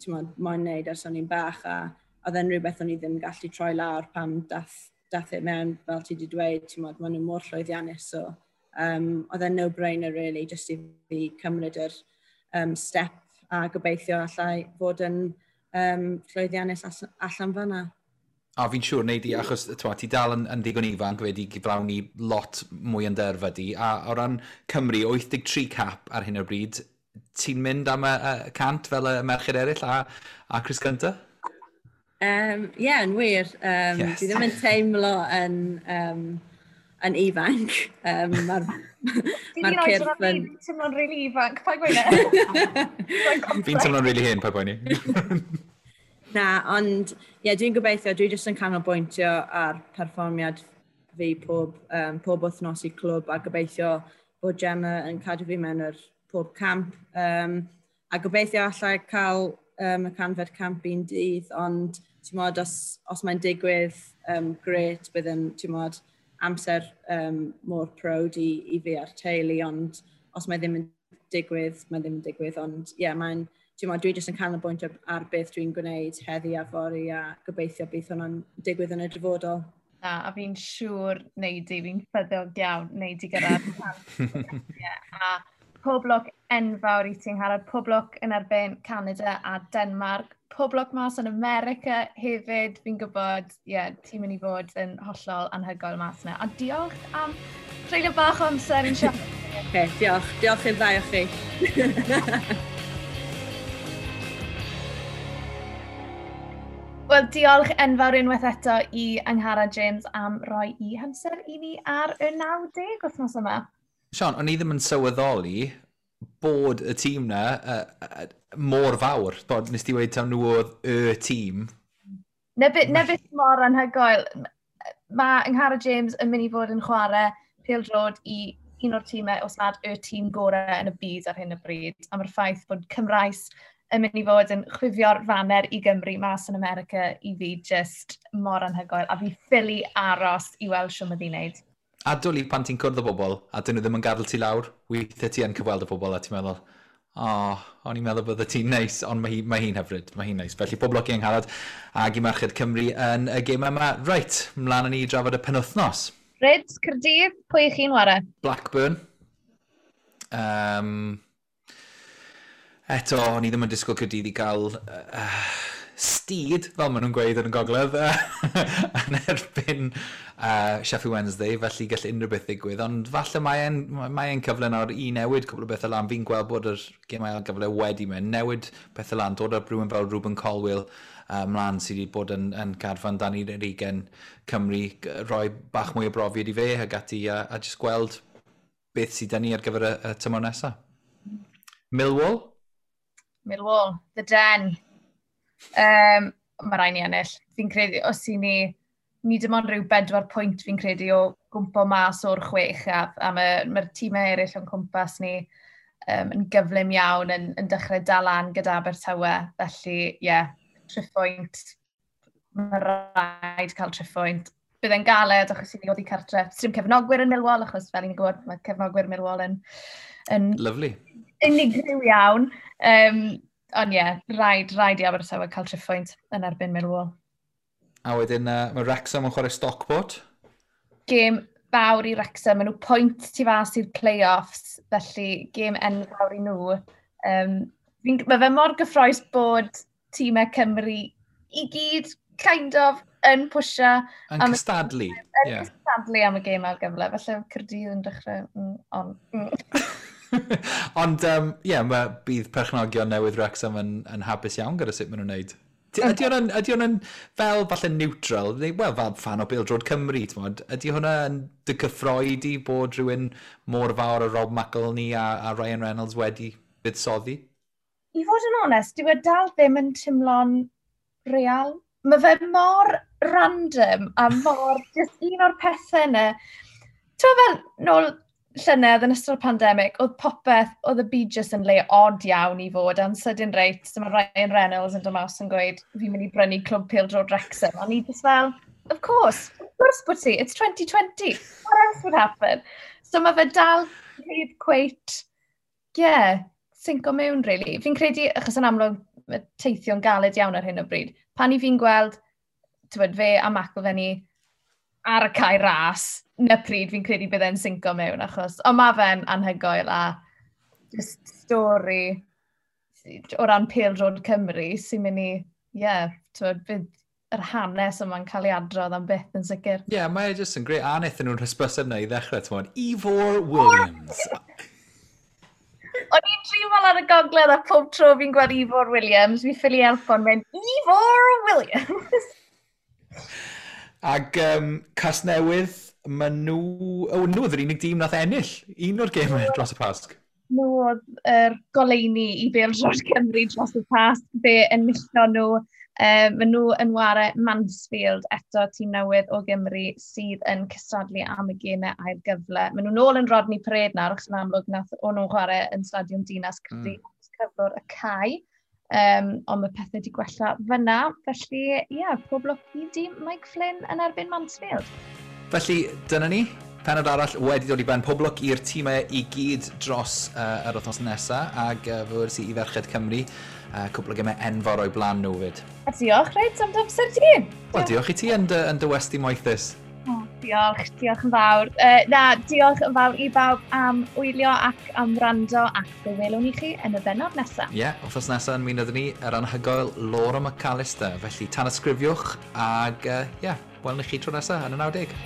ti'n gwbod, moyn wneud ers o'n i'n bach, a oedd e'n rhywbeth o'n i ddim gallu troi lawr pam dath e mewn, fel ti wedi dweud, ti'n gwbod, maen nhw mor llwyddiannus. So, oedd e'n no-brainer, really, just i fi cymryd yr step a gobeithio allai fod yn llwyddiannus allan fanna. A fi'n siŵr, nei di, achos t'mo, ti dal yn ddigon ifanc wedi gyflawni lot mwy yn dy yrfa di, a o ran Cymru, 83 cap ar hyn o bryd, ti'n mynd am y 100 fel y merched eraill a Chris Gunter? Ie, yeah, yn wir. Dwi ddim yn teimlo yn ifanc. Mae'r ma cyrff yn... Fi'n teimlo'n really ifanc, paid gweud e. Fi'n teimlo'n really hen, paid poeni. Na, ond ie, yeah, dwi'n gobeithio, dwi jyst yn canolbwyntio ar perfformiad fi pob wythnos i clwb a gobeithio bod Gemma yn cadw fi mewn yr pob camp. A gobeithio allai cael y 100fed camp un dydd, ond ti'n gwbod, os mae'n digwydd, grêt, bydd yn, ti'n gwbod, amser mor proud i fi a'r teulu, ond os mae ddim yn digwydd, mae ddim yn digwydd, ond ie, yeah, mae'n, ti'n gwbod, dwi jyst yn canolbwyntio ar beth dwi'n gwneud heddi a fory a gobeithio bydd hwnna'n digwydd yn y dyfodol. Na, a fi'n siŵr nei di, fi'n ffyddiog iawn nei di gyrraedd. Yeah, a pob lwc enfawr i ti'n Angharad, pob lwc yn erbyn Canada a Denmark, pob lwc mas yn America hefyd, fi'n gwybod, ie, yeah, ti'n mynd i fod yn hollol anhygoel mas yna. A diolch am treulio bach o amser i'n siarad. Okay, diolch. Diolch i'r ddau o chi. Wel, diolch enfawr unwaith eto i Angharad James am roi i hamser i ni ar y 90 wythnos yma. Sian, o'n i ddim yn sylweddoli bod y tîm na mor fawr. Bod, nes ti weud taw nhw oedd y tîm. Na beth mor anhygoel. Mae Angharad James yn mynd i fod yn chwarae pêl-droed i un o'r tîmau, os nad y tîm gorau yn y byd ar hyn o bryd. A mae'r ffaith bod Cymraes yn mynd i fod yn chwifio'r faner i Gymru mas yn America i fi just mor anhygoel. A fi ffili aros i weld shwt mae hi'n neud. A dwli pan ti'n cwrdd o bobl, a dyn nhw ddim yn gadael ti lawr, weithiau ti yn cyfweld y bobl a ti'n meddwl, o, oh, o'n i'n meddwl bydde ti'n neis, ond mae hi'n hyfryd, mae hi'n neis. Felly pob lwc i Angharad ag i Merched Cymru yn y gêm yma. Reit, mlaen â ni i drafod y penwythnos. Ryd, Caerdydd, pwy ych chi'n ware? Blackburn. Eto, o'n i ddim yn disgwyl Caerdydd i gael steed, fel maen nhw'n gweud yn y gogledd, yn erbyn Sheffield Wednesday, felly gall unrhyw beth ddigwydd. Ond falle mae e'n cyfle nawr i newid cwbl o bethau lan. Fi'n gweld bod yr gêm ail gyfle wedi mynd, newid pethau lan, dod â rhywun fel Rubin Colwill mlaen sydd wedi bod yn carfan dan 20 Cymru, rhoi bach mwy o brofiad i fe ag ati a just gweld beth sydd 'da ni ar gyfer y tymor nesaf. Millwall? Millwall, the Den. Mae rhaid ni ennill. Fi'n credu, os i ni dim ond rhyw 4 pwynt fi'n credu o gwmpo mas o'r chwech a mae tîmau eraill o'n cwmpas ni yn gyflym iawn yn dechrau dal lan gyda Abertawe. Felly, ie, yeah, triphwynt. Mae rhaid cael triphwynt. Bydd e'n galed achos i ni oddi cartre. Dim cefnogwyr yn Millwall, achos fel ni'n gwybod, mae cefnogwyr Millwall yn Lovely. Unigryw iawn. Ond ie, yeah, rhaid i Abertawe cael triphwynt yn erbyn Millwall. A wedyn, mae Wrexham yn chwarae Stockport. Gêm fawr i Wrexham, maen nhw pwynt tu fas i'r play-offs, felly gêm enfawr i nhw. Mae fe mor gyffrous bod tîmau Cymru i gyd kind of yn pwysio. Yn cystadlu. Yn cystadlu am y gêm ail gyfle. Felly Caerdydd yn dechrau... on. Ond, ie, yeah, mae bydd perchnogion newydd Wrexham yn hapus iawn gyda sut maen nhw'n wneud. Ydy hwnna'n fel falle neutral, neu, wel, fel fan o Bêl-droed Cymru, t'mod, ydy hwnna yn dy cyffroi di bod rhywun mor fawr o Rob McElhenney a Ryan Reynolds wedi buddsoddi? I fod yn onest, dyw e dal ddim yn teimlo'n real. Mae fe mor random a mor just un o'r pethau yna. Ti'n fel, nôl llynedd yn ystod y pandemig, oedd popeth, oedd y byd jyst yn le odd iawn i fod, a'n sydyn reit, dyma Ryan Reynolds yn dod mas yn gweud, "Fi'n mynd i brynu Clwb Pêl-droed Wrexham." A ni just fel, of course bod ti, it's 2020, what else would happen? So mae fe dal heb cweit, yeah, sinco mewn, really. Fi'n credu, achos yn amlwg, mae teithio'n galed iawn ar hyn o bryd, pan i fi'n gweld, tywed, fe a McElhenney ar y cae ras, na pryd fi'n credu bydd e'n sinco mewn, achos, ond mae fe'n anhygoel a just stori o ran pêl-droed Cymru sy'n mynd i, ie, yeah, tywed, bydd yr hanes yma'n cael ei adrodd am byth yn sicr. Ie, yeah, mae e jyst yn grêt. A wnaethon nhw'n hysbyseb na i ddechrau, t'mod, Ifor Williams. O'n i'n dreifo ar y gogledd a pob tro fi'n gweld Ifor Williams, fi ffili helpo'n mynd, "Ifor Williams!" Ag Casnewydd, maen nhw... O, nhw oedd yr unig dîm nath ennill un o'r gemau dros y Pasg. Nhw oedd yr goleuni i Bêl-droed Cymru dros y Pasg, fe enillon nhw. Maen nhw yn ware Mansfield, eto tîm newydd o Gymru sydd yn cystadlu am y gemau ail gyfle. Maen nhw nôl yn Rodney Parade nawr, achos yn amlwg nath o'n nhw'n chwarae yn Stadiwm Dinas Caerdydd cyflwr y cae. Ond mae pethau wedi gwella fyna, felly ie, yeah, pob lwc i dîm Mike Flynn yn erbyn Mansfield. Felly, dyna ni. Penod arall wedi dod i ben. Pob lwc i'r tîmau i gyd dros yr wythnos nesaf ac fe wedes i i Ferched Cymru. Cwpl o gemau enfawr o'i blaen nhw fyd. A diolch, reit, am dy amser ti. Wel, diolch i ti yn dy westy moethus. Oh, diolch, diolch yn fawr. Na, diolch yn fawr i bawb am wylio ac am wrando ac fe welwn ni chi yn y bennod nesaf. Ie, yeah, wythnos nesaf yn mynd ni yr anhygoel Laura McAllister. Felly, tanysgrifiwch ag, ie, yeah, welwn ni chi tro nesaf yn y 90.